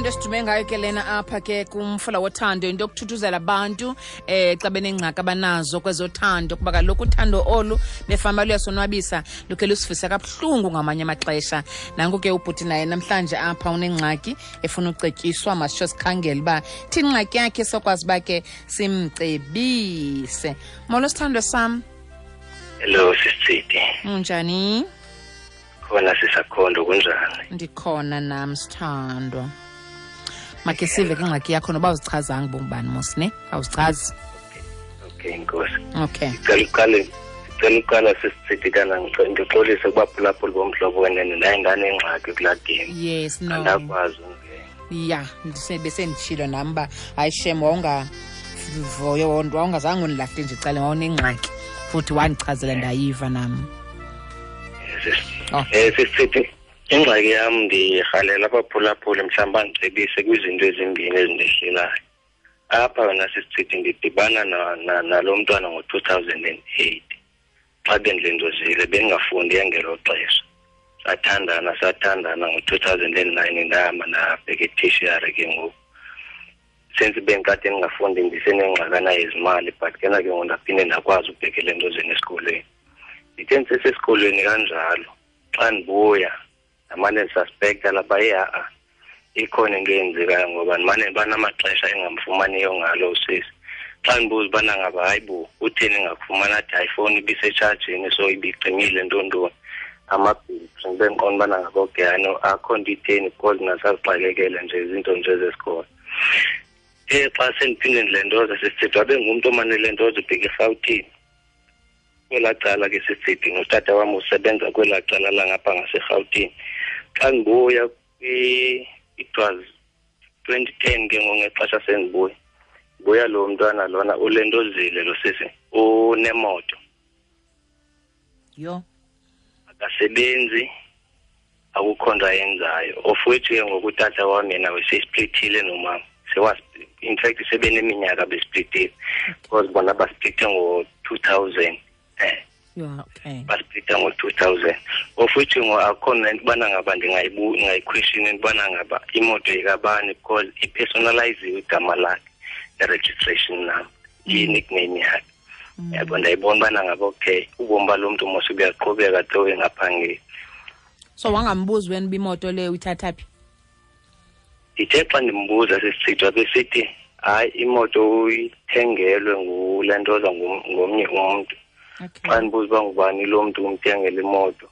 Yeyona nto esidume ngayo ke lena apha ke kumfula wothando, into yokuthuthuzela abantu xa benengxaki abanazo kwezothando, kuba kaloku uthando olu befama luyasonwabisa, lukhe lusivisa kabuhlungu ngamanye amaxesha. Nanku ke ubhuti naye namhlanje apha unengxaki efuna ucetyiswa, masitsho sikhangele uba thini ingxaki yakhe sokwazi uba ke simcebise. Molo sithandwa sam. Hello sisitsidi. Unjani? Khona sisakhondo, kunjani? Ndikhona nam sithandwa. Makhe sive ke ingxaki yakho noba uzichazanga bongubani mos ne? Awuzichazi. Okay inkosi. Okay. Ndicela uqala sisitsidi kana ndixolise kubaphulaphuli bomhlobo wenene, ndaye ndanengxaki kulaa game. Yes, no. Andakwazi ungena. Ya, besenditshilo nam uba hayi shem, wawungazange undilahle nje ecaleni, wawunengxaki futhi wandichazela ndayiva nam. Oh. Sisithi ingxaki yam ndirhalela abaphulaphuli mhlawumbi bandicebise kwizinto ezimbini ezindehlelayo. Apha wena sisithi ndidibana nalo mntwana ngo-2008 xa bendilendozile, bendingafundi ngelo xesha. Sathandana ngo-2009, ndahamba ndabheka e-tertiary ke ngoku. Since bendikade ndingafundi ndisenengxakana yezimali, but ke na ke ngoku ndaphinde ndakwazi ukubhekela entozeni esikolweni. Ndithe ndisesesikolweni kanjalo, xa ndibuya ndamane ndisuspekta lapha, ye ha-a ikhona into eyenzekayo ngoba ndimane banamaxesha engamfumaniyo ngalo usisi. Xa ndibuza ubana ngaba hayi bo utheni ngakufumana, athi hayi ifowuni ibisetshajini so ibicimile ntontoni amabhitri. Ndibe ndiqonda ubana ngaba okay hayi no akho nto itheni because nasazixakekele nje izinto nje zesikolo. Xa sendiphinde ndilentoza sisithi wabe ngumntu omane lentoza ubheka eRhawutini. Kwelaa cala ke sisithi notata wam usebenza kwelaa cala langapha ngaseRhawutini. Xa ndibuya it was 2010 ke ngoku ngexesha sendibuya. Buya lo mntwana lona ulentozile lo sisi, unemoto. Yho. Akasebenzi, akukho nto ayenzayo. Of which ke ngoku utata wam yena wesesplithile nomama. In fact sebeneminyaka besplithile. Because bona basplithe ngo-2000. Yeah, okay. Basplitha ngo-2000. Of which ngo akho nento ubana ngaba ndingayiquestion into ubana ngaba imoto yekabani because ipersonaliziwe igama lakhe, i-registration number, i-nickname yakhe. Yabo, ndayibona ubana ngaba okay, ubomi balo mntu mos buyaqhubeka though engaphangeli. So wangambuzi wena uba imoto leyo uyithatha phi? Ndithe xa ndimbuza sisichithwa besithi hayi imoto uyithengelwe ngulentoza ngomnye umntu. Xa ndibuza uba ngubani lo mntu umthengele imoto.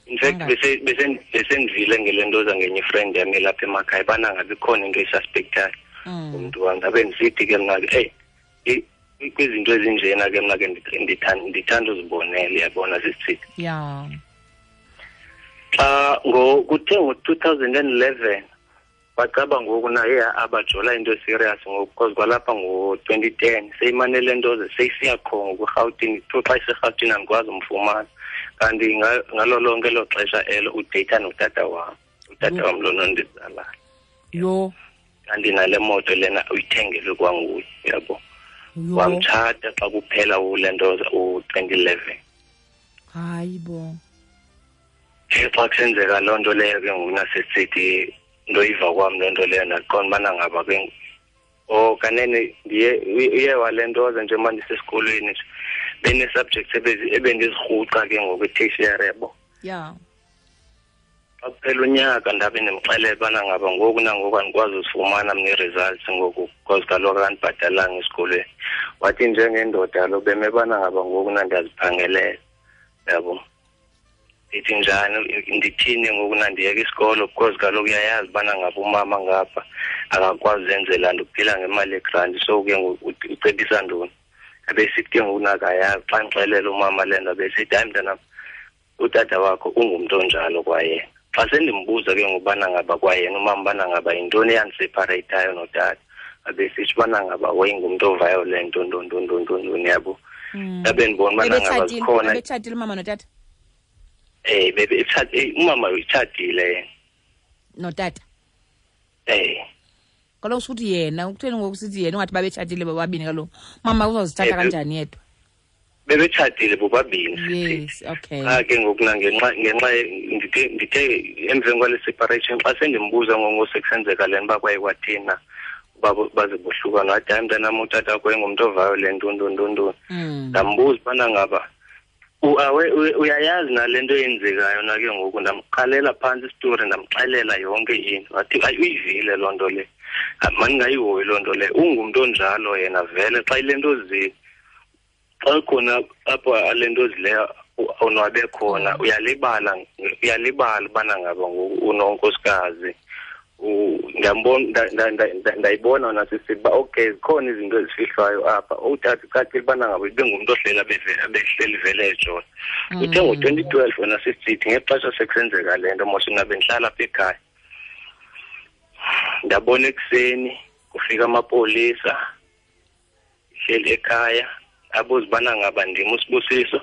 In fact, besendivile ngele ntoza ngenye ifriend yam elapha emakhaya ubana ngabe ikhona into esuspectayo umntu wam. Ndabe ndisithi ke mna ke, hey, kwizinto ezinjena ke mna ke ndithanda uzibonela, uyabona sisithi. Xa kuthe ngo-2011 bacaba ngoku naye abajola into eserious ngoku because kwalapha ngo-2010 seyimane le nto ze seyisiya qho ngoku eRhawutini. Kuthiwa xa iseRhawutini andikwazi umfumana, kanti ngalo lonke elo xesha elo udeyitha notata wam, utata wam lona ondizalayo. Kanti nale moto lena uyithengelwe kwanguye, uyabo. Wamtshata xa kuphela ule nto u-2011. Hayi bo. Xa kusenzeka loo nto leyo ke ngoku nasesithi ndoyiva kwam loo nto leyo, ndaqonda ubana ngaba ke oh kanene uye wale nto ze njengoba ndisesikolweni nje bene-subjects ebendizirhuqa ke ngoku e-tertiary, yabo. Xa kuphela unyaka ndabe ndimxelela ubana ngaba ngoku nangoku andikwazi uzifumana mna ii-results ngoku because kaloku akandibhatalanga esikolweni. Wathi njengendoda lo beme bana ngaba ngoku nandiyaziphangelela, yabo. Ndithi njani, ndithini ngoku nandiyeka isikolo because kaloku uyayazi ubana ngaba umama ngapha akakwazi uzenzela nto, uphila ngemali yegranti, so ke ngoku ucebisa ntoni? Abesithi ke ngoku nakayazi, xa ndixelela umama le nto abesithi hayi mntanam, utata wakho ungumntu onjalo kwayena. Xa sendimbuza ke ngoku ubana ngaba kwayena umama ubana ngaba yintoni eyandisepareyithayo notata, abesithi ubana ngaba wayengumntu oviolent, nto, nto, nto, nto, nto, yabo. Ndabe ndibona ubana ngaba zikhona. Ebetshatile umama notata? Umama utshatile yena. Notata? Kaloku sukuthi yena, ukutheni ngoku sithi yena ungathi babetshatile bobabini kaloku? Mama uzozithatha kanjani yedwa? Bebetshatile bobabini. Yes, okay. Qha ke ngoku ngenxa ndithe emveni kwale separation xa sendimbuza ngosekusenzeka le nto uba kwaye kwathina uba baze bohlukana, wathi hayi mntanam, utata wakho engumntu oviolent, ntontontontoni. Ndambuza ubana ngaba uyayazi nale nto eyenzekayo na ke ngoku. Ndamqalela phantsi isitori, ndamxelela yonke into. Wathi ayi, uyivile loo nto le, mandingayihoyi loo nto le, ungumntu onjalo yena vele. Xa ile nto xa khona apho ale nto zileyo onwabe khona, uyalibala ubana ngaba ngoku unonkosikazi. Ndiyambona, ndayibona nasisithi uba okay, zikhona izinto ezifihlwayo apha. Utata ucacile ubana ngaba ibengumntu ohleli abehleli vele ejola. Uthe ngo-2012 wena sisithi ngexesha sekusenzeka le nto mos mna bendihlala apha ekhaya, ndabona ekuseni kufika amapolisa, hleli ekhaya, abuza ubana ngaba ndim uSibusiso,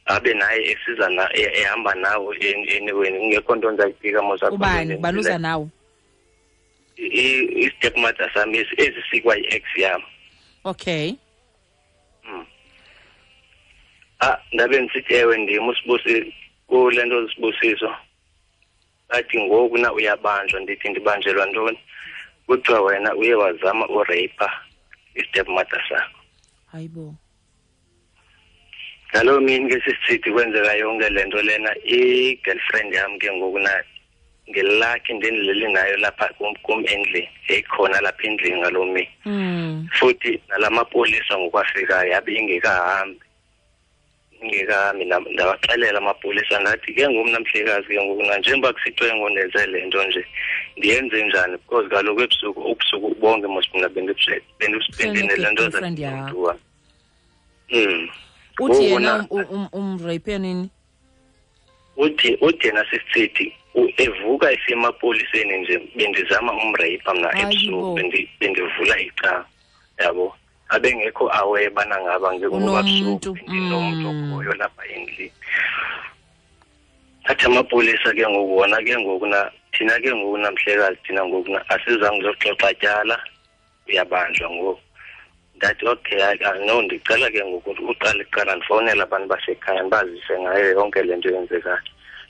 abe naye esiza na ehamba nawo anyway, kungekho nto ndizayiphika mos. Ubani? Ubani uza nawo? I-stepmother sam esi sikwa yi-ex yam. Okay. Ndabe ndisithi ewe ndim uSibusiso kule nto Sibusiso. Athi ngoku na uyabanjwa. Ndithi ndibanjelwa ntoni? Kuthiwa wena uye wazama urape i-stepmother sakho. Hayibo. Ngaloo mini ke sisithi kwenzeka yonke le nto lena, i-girlfriend yam ke ngoku na ngelakhi ndendilele nayo lapha kum endlini, yayikhona lapha endlini ngaloo mini. Futhi nalamapolisa ngokwafikayo yabe ingekahambi. Ndawaxelela amapolisa ndathi ke ngoku mna mhlekazi ke ngoku na njengoba kusithiwe ngondenze le nto nje, ndiyenze njani? Because kaloku ebusuku, ubusuku bonke mos mna bendinele nto girlfriend yakho. Uthi yena umrape nini? Uthi yena sisithi evuka esemapoliseni nje bendizama umrape mna ebusuku, bendivula icala, yabo. Abengekho aware bana ngaba ngoba busuku ndinomntu okhoyo lapha endlini. Athi amapolisa ke ngoku wona ke ngoku na thina ke ngoku namhlekazi thina ngoku na asizange uzoxoxa tyala, uyabanjwa ngoku. Ndathi okay, no, ndicela ke ngoku uqale kuqala ndifowunele abantu basekhaya ndibazise ngayo yonke le nto yenzekayo.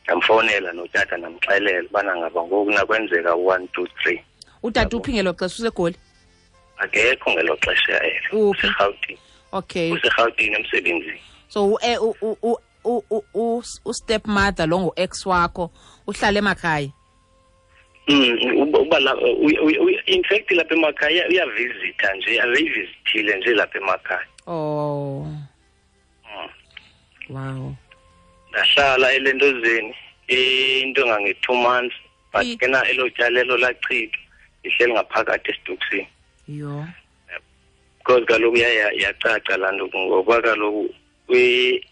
Ndamfowunela notata ndamxelela ubana ngaba ngoku nakwenzeka 1 2 3. Utata uphi ngelo xesha? UseGoli? Akekho ngelo xesha elo. UseRhawutini. Okay. UseRhawutini emsebenzini. So u-stepmother lo ngu-ex wakho uhlala emakhaya? Uba in fact lapha emakhaya uyavisita nje, abeyivisithile nje lapha emakhaya. Oh. Wow. Ndahlala elentozeni into engange-2 months, but ke na elo tyala elo lachithwa, ndihleli ngaphakathi esitokisini. Yho. Because kaloku yacaca laa nto ngoba kaloku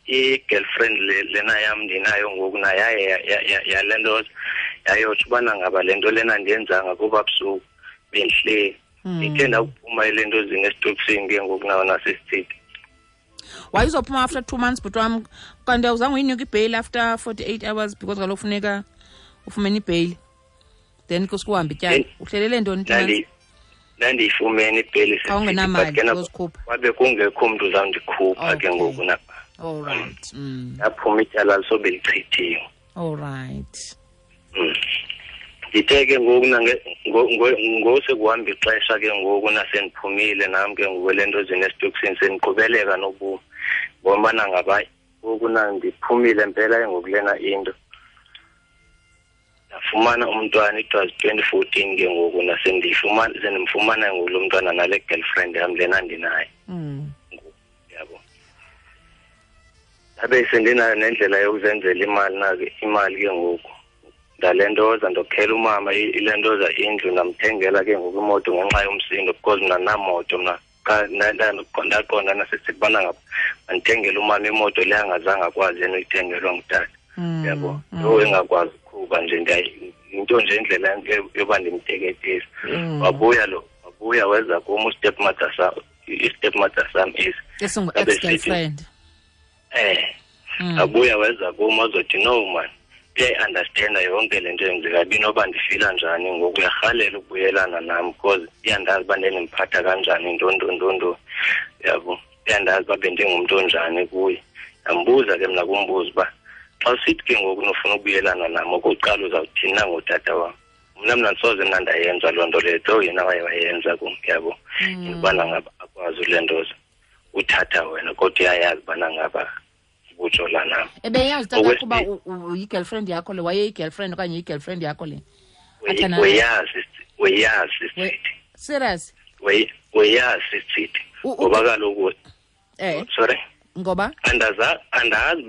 i-girlfriend lena yam ndinayo ngoku naye yaye yale nto yayotsho ubana ngaba le nto lena ndiyenzanga kuba busuku bendihleli. Ndithe ndakuphuma ele nto zini esitokisini ke ngoku nawo nasesithithi. Wayezophuma after 2 months bhuti wam, kanti awuzange uyinike ibheyili after 48 hours because kaloku funeka ufumene ibheyili, then kusukuhamba ityala. Uhlelele ntoni 2 months? Ndandiyifumene ibheyili Awungenamali ozikhupha. Kwabe kungekho mntu uzawundikhupha ke ngoku napha. All right. Ndaphuma ityala lisobe lichithiwe. All right. Ndithe ke ngoku ngosekuhamba ixesha ke ngoku nasendiphumile nam ke ngoku le nto zinesitokisini sendiqhubeleka nobomi. Ngoba ngaba ngoku ndiphumile mpela ke ngoku lena into. Ndafumana umntwana, it was 2014 ke ngoku sendimfumana ngoku lo mntwana nale girlfriend yam lena ndinayo. Yabo. Ndabe sendinayo nendlela yokuzenzela imali nake imali ke ngoku. Ndalentoza ndokhela umama ilentoza indlu, ndamthengela ke ngoku imoto ngenxa yomsindo because mna namoto mna. Ndaqonda nasisithi ubana ngaba mandithengele umama imoto le angazange akwazi yena uyithengelwa ngutata. Yabo. Lo engakwazi ukuqhuba nje, into nje indlela yoba ndimteketise. Wabuya weza kum u-stepmother sam, i-stepmother sam is esingu-ex-girlfriend. Wabuya weza kum wazothi no man, uyayi-understanda yonke le nto yenzeka binoba ndifila njani ngoku, uyarhalela ukubuyelana nam because iyandazi uba ndendimphatha kanjani, ntontontonto. Yabo, uyandazi uba bendingumntu onjani kuye. Ndambuza ke mna kumbuza uba xa usithi ke ngoku nofuna ukubuyelana nam, okokuqala uzawuthini na ngotata wam? Mna ndisoze mna ndayenza loo nto leyo, though yena waye wayenza kum, yabo. Intobana ngaba akwazi ulentoza uthatha wena, kodwa uyayazi ubana ngaba ubujola nam. Ebeyazi tata kuba yi-girlfriend yakho le, wayeyi-girlfriend okanye yi-girlfriend yakho le? Weyazi sithi. Serious? Weyazi sithi. Ngoba kaloku sorry. Ngoba? Andazi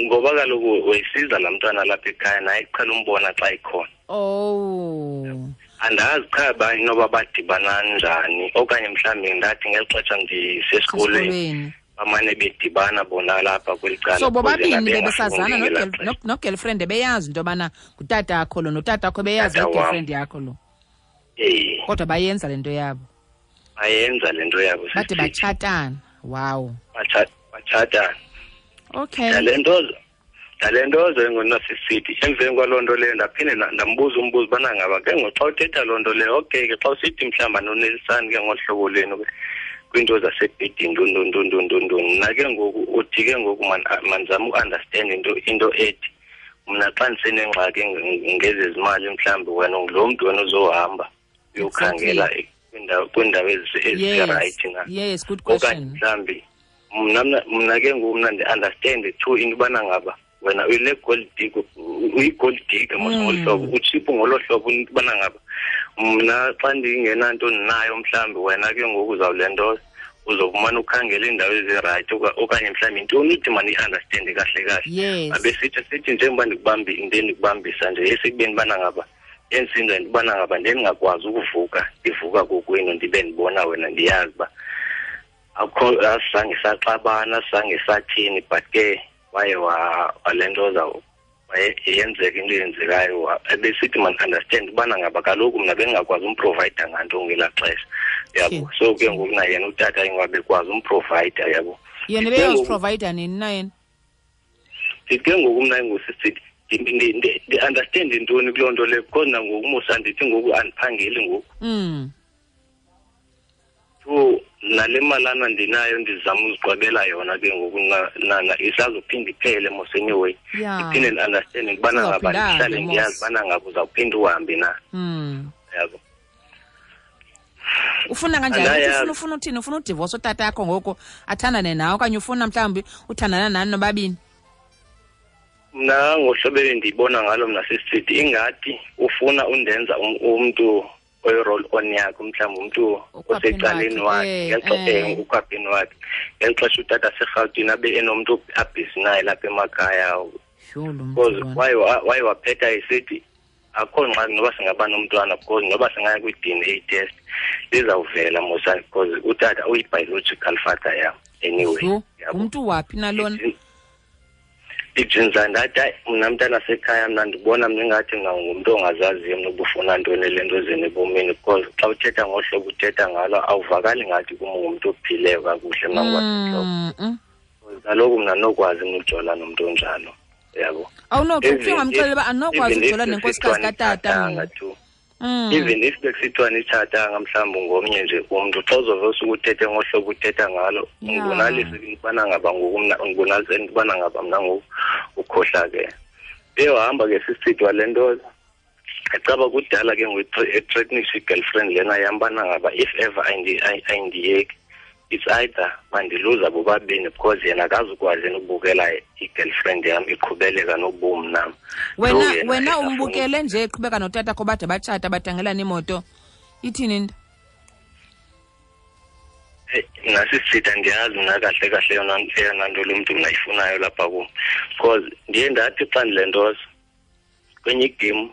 ngoba kaloku wayisiza laa mntwana lapha ekhaya, naye kuqhela umbona xa ikhona. Oh. Andazi qha ba inoba badibana njani, okanye mhlawumbi ndathi ngeli xesha ndisesikolweni bamane bedibana bona lapha kweli cala. So bobabini bebesazana no-girlfriend, beyazi into yobana ngutata akho lo, notata akho beyazi i-girlfriend yakho lo. Kodwa bayenza le nto yabo. Bayenza le nto yabo. Bade batshatana. Wow. Batshatana. Okay. Ndalentozo engonasisithi emveni kwaloo nto leyo ndaphinde ndambuza umbuzo ubana ngaba ke ngoku xa uthetha loo nto leyo, okay ke xa usithi mhlawumbi anonelisani ke ngolu hlobo lwenu kwiinto zasebhedini ntontontontontontoni, mna ke ngoku uthi ke ngoku mandizame uunderstand into ethi mna xa ndisenengxaki ngezezimali mhlawumbi wena ngulo mntu wena uzohamba uyokhangela kwiindawo ezirayithi na. Yes, good question. Okanye mhlawumbi mna ke ngoku mna ndi-understand too into ubana ngaba wena uyile gold digger, uyi-gold digger mos ngolu hlobo, utshiphu ngolo hlobo into ubana ngaba mna xa ndingenanto ndinayo mhlawumbi wena ke ngoku uzawulentoza uzofumana ukhangela iindawo ezirayithi okanye mhlawumbi intoni uthi mandiyi-understande kahle kahle. Abe sithi njengoba ndikubambisa nje esekubeni ubana ngaba endisenza into ubana ngaba ndingakwazi ukuvuka, ndivuka kokwenu ndibe ndibona wena, ndiyazi uba akho asizange saxabana, asizange sathini, but ke waye walentoza yenzeka into eyenzekayo. Ebesithi man-understand ubana ngaba kaloku mna bendingakwazi umprovayida nganto ngelaa xesha, yabo. So ke ngoku na yena utata ingabekwazi umprovayida, yabo. Yena ebeyoziprovayida nini na yena? Ndithi ke ngoku mna ingusisithi ndi-understand intoni kuloo nto leyo, because nangoku musa ndithi ngoku andiphangeli ngoku. So nale malana ndinayo ndizama uziqwebela yona ke ngoku isazophinda iphele mos anyway. Ndiphinde ndi-understand ukubana ngaba ndihlale ndiyazi ubana ngaba uzawuphinda uhambe na. Yabo. Ufuna kanjani? Ufuna uthini? Ufuna udivorce utata yakho ngoku athandane nawe, okanye ufuna mhlawumbi uthandana nani nobabini? Mna ngohlobo endiyibona ngalo mna sisithi ingathi ufuna undenza umntu oyi-roll on yakhe, mhlawumbi umntu osecaleni wakhe ukhwapheni wakhe ngeli xesha utata seRhawutini abe enomntu abhizi naye lapha emakhaya. Because waye waphetha esithi akho ngxaki noba singaba nomntwana, because noba singaya kwi-DNA test lizawuvela mosa, because utata uyi-biological father yam anyway. Ngumntu waphi nalona? Ijinza ndathi hayi mna mntana sekhaya mna ndibona mna ingathi mna ngumntu ongazaziyo mna ubufuna ntoni le nto zeni ebomini, because xa uthetha ngohlobo uthetha ngalo awuvakali ngathi kum ngumntu ophileyo kakuhle mna ngokwasentloko. Kaloku mna nokwazi mna ujola nomntu onjalo, yabo. Awunokuthi ungamxelela uba andinokwazi ujola nenkosikazi katata. Even if bekusithiwa nitshatanga mhlawumbi ngomnye nje umntu, xa uzove usuke uthethe ngohlobo uthetha ngalo, ungibonalise intobana ngaba ngoku mna, ungibonalise intobana ngaba mna ngoku ukhohlakele. Eyohamba ke sisithi wale nto ecaba kudala ke ngoku ethreatenisha i-girlfriend lena yam ubana ngaba if ever ayindiyeki, it's either bandiluza bobabini because yena akazukwazi yena ukubukela i-girlfriend yam iqhubeleka nobomi nam. Wena umbukele nje eqhubeka notata kho bade batshata badangelana imoto, ithini into? Nasisitha ndiyazi mna kahle kahle eyona nto lo mntu mna ayifunayo lapha kum, because ndiye ndathi xa ndilentoza kwenye igame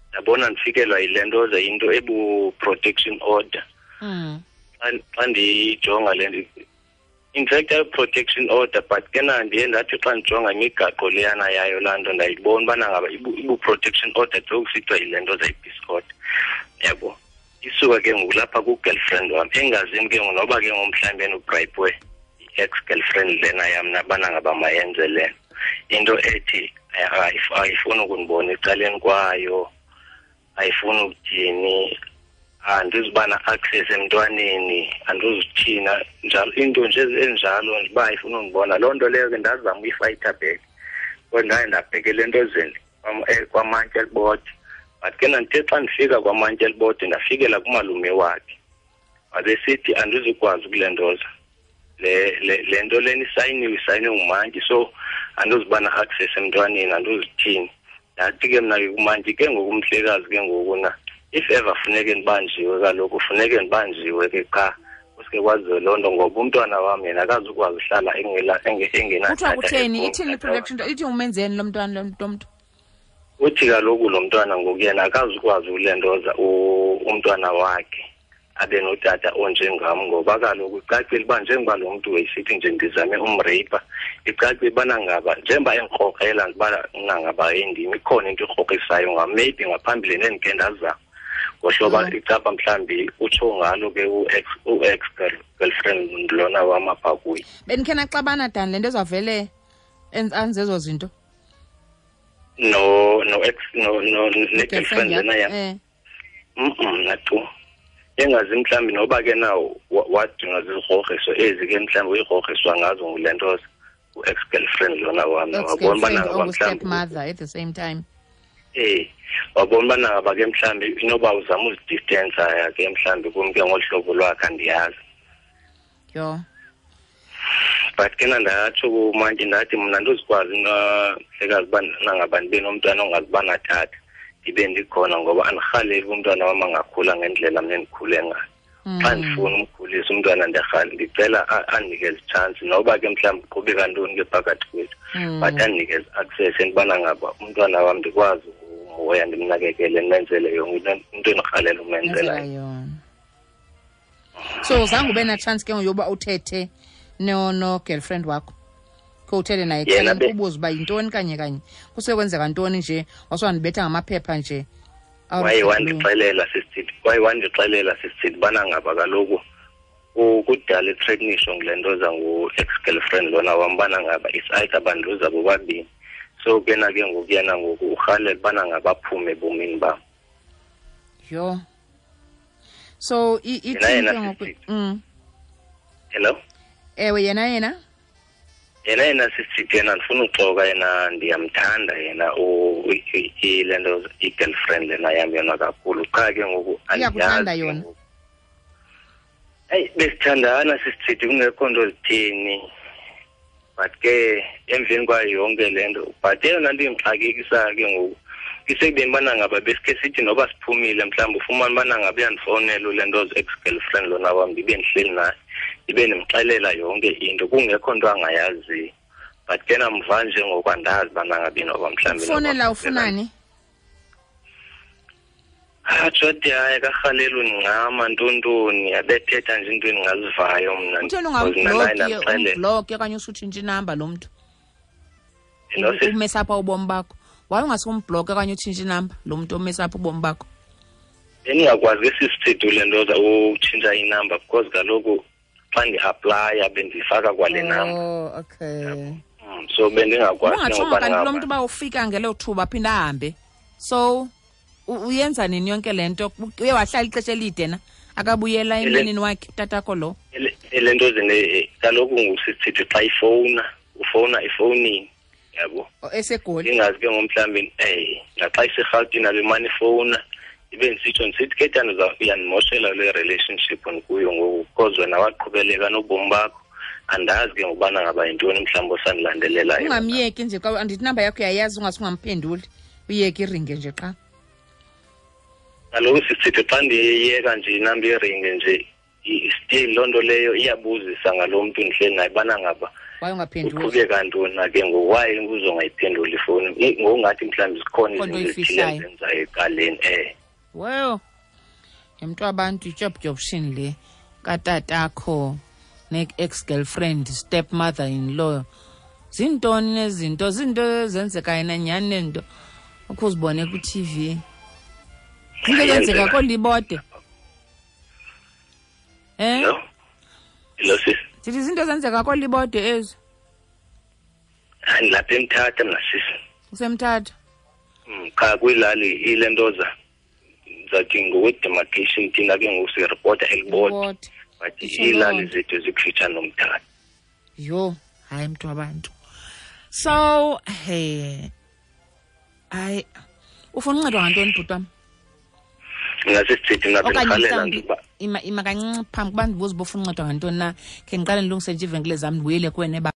ndabona ndifikelwa yile ntoza into ebu-protection order. Xa ndiyijonga le nto, in fact ayi-protection order, but ke na ndiye ndathi xa ndijonga imigaqo leyana yayo laa nto ndayibona ubana ngaba ibu-protection order though kusithiwa yile nto zayi-peace order, yabo. Isuka ke ngoku lapha ku-girlfriend wam, engazini ke ngoku noba ke ngoku mhlawumbi enobrayipwe i-ex-girlfriend lena yam nabana ngaba mayenze le into ethi ayifuni ukundibona ecaleni kwayo, ayifuni ukuthini. Andizuba na-access emntwaneni, andizithina njalo into nje enjalo nje uba ifuna undibona. Loo nto leyo ke ndazama uyifayitha back, kodwa ndaye ndabhekela entozeni kwamantye elibode. But ke ndithe xa ndifika kwamantye elibode ndafikela kumalume wakhe, wabesithi andizukwazi ukulentoza le nto lena isayiniwe, isayiniwe ngumantyi, so andizuba na-access emntwaneni, andizithini. Ndathi ke mna ke kumantyi ke ngoku umhlekazi ke ngoku na if ever funeke ndibanjiwe kaloku, funeke ndibanjiwe ke qha kuske kwaziwe loo nto, ngoba umntwana wam yena akazukwazi uhlala engenatata. Kuthiwa kutheni? Ithini i-protection? Ithi umenzeni lo mntwana lo mntu? Uthi kaloku lo mntwana ngoku yena akazukwazi ulentoza umntwana wakhe abe notata onjengam, ngoba kaloku icacile uba njengoba lo mntu wayesithi nje ndizame umrape, icacile ubana ngaba njengoba endikrokrela uba ngaba endim ikhona into ikrokrisayo ngam, maybe ngaphambili nendikhe ndazama ngohlobo icapha mhlawumbi utsho ngalo ke u-ex girlfriend lona wam apha kuye. Bendikhe naxabana Dan le nto ezawuvele anze ezo zinto? No, no ex, no, no, ne-girlfriend lena yam. Natu. Engazi mhlawumbi noba ke na wadinga zizigrogriso ezi ke mhlawumbi uyigrogriswa ngazo ngule nto u-ex-girlfriend lona wam. Wabona uba nangaba mhlawumbi mother at the same time. Wabona uba nangaba ke mhlawumbi inoba uzama uzidistensa ke mhlawumbi kum ke ngolu hlobo lwakhe, andiyazi. Yho. But ke ndatsho kumantyi ndathi mna andizukwazi mhlekazi uba nangaba ndibe nomntwana ongazuba natata, ndibe ndikhona, ngoba andirhaleli umntwana wam angakhula ngendlela mna endikhule ngayo. Xa ndifuna umkhulisa umntwana ndiyarhala, ndicela andinikeze itshansi noba ke mhlawumbi kuqhubeka ntoni ke phakathi kwethu, but andinikeze access entubana ngaba umntwana wam ndikwazi ukumhoya, ndimnakekele, ndimenzele yonke into endirhalela umenzela yona. So zange ube na-chance ke ngoku yoba uthethe no-girlfriend wakho, khe uthethe naye ubuze uba yintoni kanye kanye, kusekwenzeka ntoni nje, wasewandibetha ngamaphepha nje. Waye wandixelela sisithi, waye wandixelela sisithi ubana ngaba kaloku kudala ithreatenisho ngule nto za ngu-ex-girlfriend lona wam, ubana ngaba it's either bandiluza bobabini. So ke na ke ngoku yena ngoku urhalela ubana ngaba aphume ebomini bam. Yho. So ithini ke ngoku? Hello? Ewe, yena yena? Yena yena sisithi yena ndifuna uxoka, yena ndiyamthanda yena le nto i-girlfriend lena yam yona kakhulu. Qha ke ngoku iyakuthanda yona. Eyi, besithandana sisithi kungekho nto zithini, but ke emveni kwayo yonke le nto, but eyona nto indixakekisayo ke ngoku isekubeni ubana ngaba besikhe sithi noba siphumile mhlawumbi ufumane ubana ngaba uyandifowunela le nto ex-girlfriend lona wam, ndibe ndihleli naye, ndibe ndimxelela yonke into kungekho nto angayaziyo. But ke namva nje ngoku andazi ubana ngabi noba mhlawumbi ufowunela ufunani? Jodi, hayi karhaleli undincama ntontoni, abethetha nje into endingazivayo mna. Utheni ungambloki okanye usutshintshe inamba lo mntu? Umesapha ubomi bakho. Why ungasumbloki okanye utshintshe inamba lo mntu omesapha ubomi bakho? Bendingakwazi ke sisithethu le nto utshintsha inamba, because kaloku xa ndi-aplaya bendifaka kwale namba. Oh, okay. So bendingakwazi. Ungatshongo kanti lo mntu uba ufika ngelo thuba aphinde ahambe. So uyenza nini yonke le nto? Uye wahlala ixesha elide na? Akabuyela emndenini wakhe utatakho lo? Le nto zine kaloku ngusisithi xa ifowuna, ufowuna efowunini, yabo. EseGoli. Ingazi ke ngomhlawumbi, naxa iseRhawutini abemane ifowuna, ibe ndisitsho ndisithi ke tana uyandimoshela le relationship ndikuyo ngoku, because wena waqhubeleka nobomi bakho, andazi ke ngokubana ngaba yintoni mhlawumbi osandilandelelayo. Ungamyeki nje, xa andithi inamba yakho uyayazi, ungase ungamphenduli, uyeke iringe nje qha. Kaloku sisithi xa ndiyeka nje inamba iringe nje, still loo nto leyo iyabuzisa ngalo mntu ndihleli naye ubana ngaba Why ungaphenduli? Uqhubeka ntoni na ke ngoku? Why uzongayiphenduli ifowuni? Ngokungathi mhlawumbi zikhona Khona izinto ezithile oyifihlayo. ezenzayo ecaleni. Well, yimntu wabantu ityobtyobshini le katatakho ne-ex-girlfriend, stepmother-in-law. Zintoni nezinto? Zinto ezenzekayo na nyhani nento ukhe uzibone kwi-T V. Into eyenzeka koolibode. Hello? Hello, sis. Ndithi izinto ezenzeka koolibode ezi. Hayi, ndilapha eMthatha mna, sis. Usemthatha? Cha, kwilali ilentoza. Ndizathi ngokwe-demarcation thina ke ngoku siripota eLibode, but iilali zethu zikufutshane noMthatha. Yho, hayi mntu wabantu. So he, hayi, ufuna uncedwa ngantoni, bhuti wam? Ngasisithethi mna bendirhalela nje uba Ima, ima kancinci phambi kuba ndibuze uba ufuna uncedwa ngantoni na, khe ndiqale ndilungise nje iivenkile zam, ndibuyele kuwena.